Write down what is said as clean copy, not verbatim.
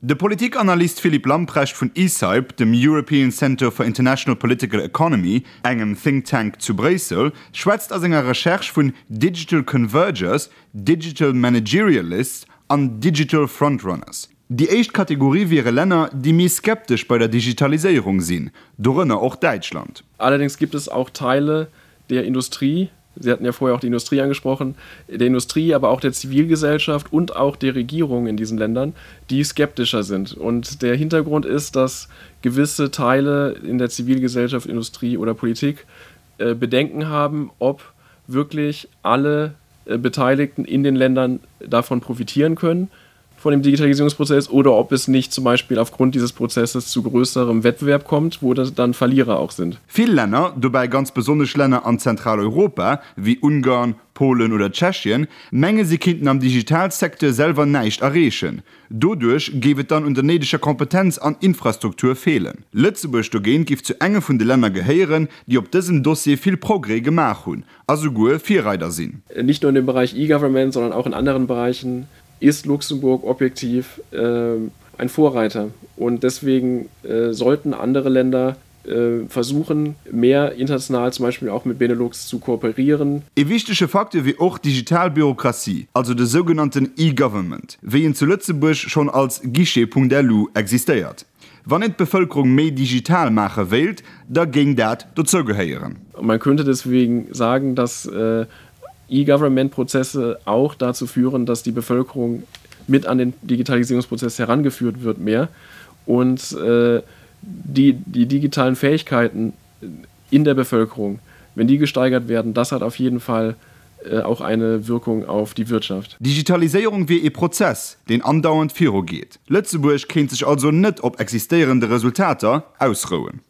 De Politikanalyst Philippe Lamprecht vun ECIPE, dem European Centre for International Political Economy, engem Think Tank zu Bréissel, schwätzt a senger Recherche vun Digital Convergers, Digital Managerialists an Digital Frontrunners. Déi éischt Kategorie wiere Länner, déi méi skeptesch bei der Digitaliséierung sinn, dorënner och Däitschland. Allerdings gibt es auch Teile der Industrie, Sie hatten ja vorher auch die Industrie angesprochen, der Industrie, aber auch der Zivilgesellschaft und auch der Regierung in diesen Ländern, die skeptischer sind. Und der Hintergrund ist, dass gewisse Teile in der Zivilgesellschaft, Industrie oder Politik äh, Bedenken haben, ob wirklich alle äh, Beteiligten in den Ländern davon profitieren können von dem Digitalisierungsprozess oder ob es nicht zum Beispiel aufgrund dieses Prozesses zu größerem Wettbewerb kommt, wo das dann Verlierer auch sind. Vill Länner, dobäi ganz besonnesch Länner an Zentraleuropa, wéi Ungarn, Polen oder Tschechien, menge si kinnten am Digitalsecteur selwer näischt erreechen. Doduerch géif et dann un der néideger Kompetenz an Infrastruktur feelen. Lëtzebuerg dogéint géif zu enge vun de Länner gehéieren, déi op dësem Dossier vill Progrès gemaach hunn a souguer Virreider sinn. Nicht nur in dem Bereich E-Government, sondern auch in anderen Bereichen ist Luxemburg objektiv äh, ein Vorreiter. Und deswegen äh, sollten andere Länder äh, versuchen, mehr international zum Beispiel auch mit Benelux zu kooperieren. E wichtege Facteur wier och d'digital Bürokratie, also de sougenannten E-Government, wéi en zu Lëtzebuerg schonn als Guichet.lu existéiert. Wann een d'Bevëlkerung méi digital maache wéilt, da géing dat dozou gehéieren. Man könnte deswegen sagen, dass äh, E-Government-Prozesse auch dazu führen, dass die Bevölkerung mit an den Digitalisierungsprozess herangeführt wird mehr und äh, die, die digitalen Fähigkeiten in der Bevölkerung, wenn die gesteigert werden, das hat auf jeden Fall äh, auch eine Wirkung auf die Wirtschaft. Digitaliséierung wier ee Prozess, deen andauernd virugeet. Lëtzebuerg kéint sech also net op existéierende Resultater ausrouen.